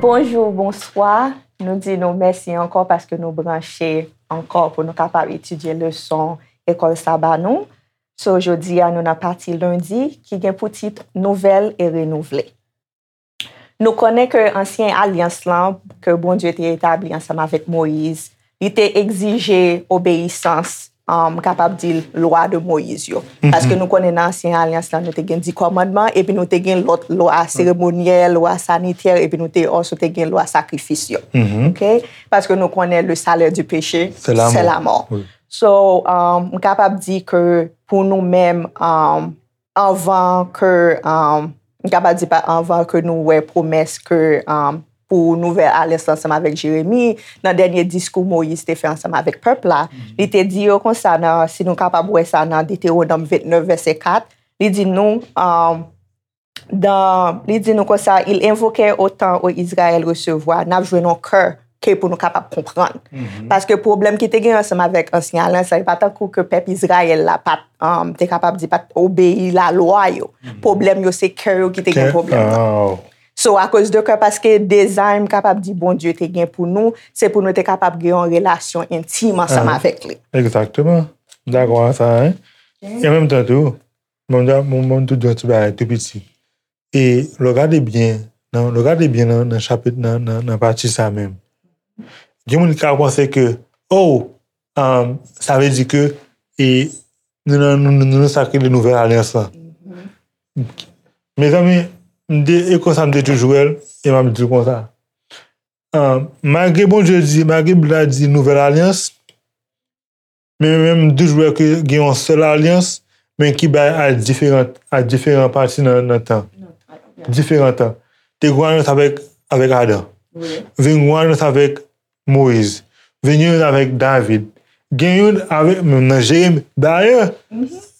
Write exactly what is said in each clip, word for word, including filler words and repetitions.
Bonjou, bonswa. Nou di nou mèsi ankò paske nou branche ankò pou nou kapab etidye leson ekòl saba nou. So, jodi a, nou nan pati lendi ki gen pou tit Nouvèl e Renouvle. Nou konnen ke ansyen alyans lan, ke Bondye te etabli ansanm avèk Moyiz, li te egzije obeyisans, um, kapab di lwa de Moyiz yo. Paske nou konnen nan ansyen alyans lan, nou te gen di kòmandman, epi nou te gen lòt lwa seremonyèl, lwa sanitè, epi nou te also te gen lwa sakrifis yo. Ok? Paske nou konnen le salaire du péché, c'est la mort. So, um, m kapab di ke pou nou menm, um, anvan ke, um, m kapab di pa anvan ke nou wè pwomès ke, um, pou nouvèl alyans ansanm avèk Jeremi, nan dènye diskou Moyiz te fè ansanm avèk pèp la, li te di yo konsa nan, si nou kapab wè sa nan Detewonòm vennèf vèsè kat, li di nou, um, dan, li di nou konsa, il invoquait au temps, ô Israël, recevoir, n ap jwenn yon kè ke pou nou kapab konprann. Paske pwoblèm ki te gen ansanm avèk ansyen alyans la, e pa tankou ke pèp Izrayèl la pa t, um, te kapab di, pa t obeyi lalwa yo. Pwoblèm yo, se kè yo ki te gen pwoblèm nan. So, akoz de kè, paske dezay m kapab di Bondye te gen pou nou, se pou nou te kapab gen yon relasyon entim ansanm avèk li. Egzakteman. M dakò ak sa, hein. E an menm tan tou, bon, m, bon, bon, tou di yon ti bagay tou piti. E lè w gade byen, nan, lè w gade byen nan, nan chapit, nan, nan, nan pati sa menm, gen moun ki ka panse ke, oh, um, sa vle di ke, e, nou nan, nou, nou, nou nan sa k rele nouvèl alyans lan. Mezanmi, m te, e konsa m te toujou wè l, e m ap di l konsa. Um, malgre Bondye di, malgre Bib la di nouvèl alyans, men menm m toujou wè ke gen yon sèl alyans, men ki bay a diferan, a diferan pati nan, nan tan. Diferan tan. Te gen yon alyans avèk, avèk Adan. Vin gen yon alyans avèk Moyiz. Vin gen yon avèk David. Gen yon avèk, menm nan Jeremi. Dayè,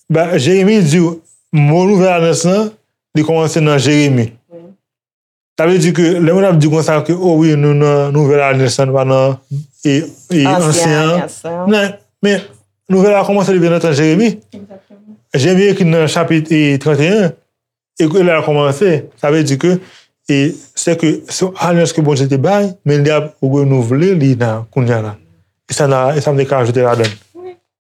ba, Jeremi di w, mo nouvèl alyans lan, li kòmanse nan Jeremi. Sa vle di ke lè moun ap di konsa ke, oh wi, nou nan nouvèl alyans lan, nou pa nan, e, e, ansyen an. Nan, men nouvèl la kòmanse depi nan tan Jeremi. Jeremi ekri nan chapit, e, trannteyen, e ke lè a kòmanse. Sa vle di ke, e, se ke se yon alyans ke Bondye te bay, men li ap renouvle li nan kounye a la. E sa, e sa m te ka ajoute ladan l.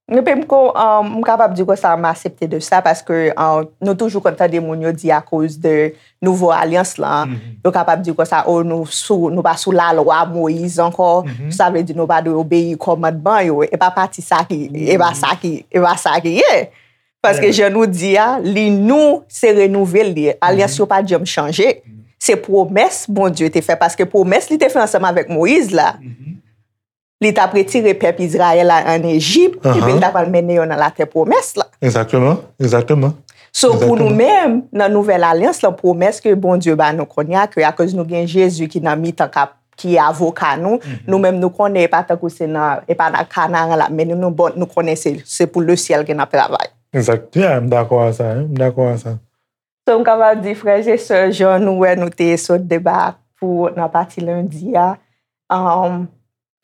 Epi m ko, um, m kapab di konsa, m aksepte de sa, paske, um, nou toujou konn tande moun yo di akoz de nouvo alyans lan, yo kapab di konsa, oh, nou sou, nou pa sou lalwa Moyiz ankò, sa vle di nou pa dwe obeyi kòmandman yo. E pa pati sa ki, e pa sa ki, e pa sa ki ye. Paske jan nou di a, li nou, se renouvle li ye. Alyans yo pa janm chanje. Se pwomès Bondye te fè, paske pwomès li te fè ansanm avèk Moyiz la, li t ap retire pèp Izrayèl la ann Ejip, epi li t ap al mennen yo nan latè pwomès la. Egzakteman, egzakteman. So, pou nou menm, nan nouvèl alyans lan, pwomès ke Bondye ba nou kounye a, ke akoz nou gen Jezi ki nan mitan k ap, ki avoka nou, nou menm nou konnen e pa tankou se nan, e pa nan Kanaran l ap mennen nou, bon, nou konnen se, se pou lesyèl ke n ap travay. Egzakt, yeah, m dakò a sa, hein, m dakò a sa. So, m kapab di, frè e sè, jan nou wè nou te sot deba pou nan pati lendi a, um,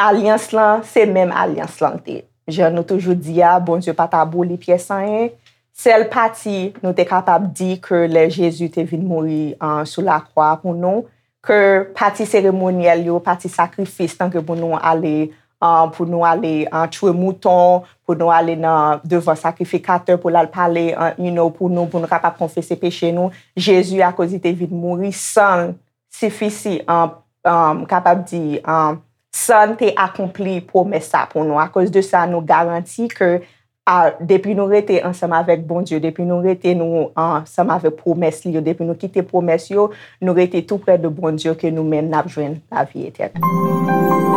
alyans lan, se menm alyans lan l te. Jan nou toujou di a, Bondye pa t aboli pyès anyen. Sèl pati nou te kapab di ke lè Jezi te vin mouri, uh, sou lakwa pou nou, ke pati seremonyèl yo, pati sakrifis, tanke pou nou ale, uh, pou nou ale, uh, tchwe mouton, pou nou ale nan devan sakrifikatè pou l al pale, uh, you know, pou nou, pou nou kapab konfese peche nou. Jezi, akoz li te vin mouri, san l sifisi, an, an, kapab di, an, san l te akonpli pwomès sa pou nou. Akoz de sa, nou garanti ke, a, depi nou rete ansanm avèk Bondye, depi nou rete nou ansanm avèk pwomès li yo, depi nou kite pwomès yo, nou rete tou prè de Bondye, ke nou menm n ap jwenn lavi etènèl.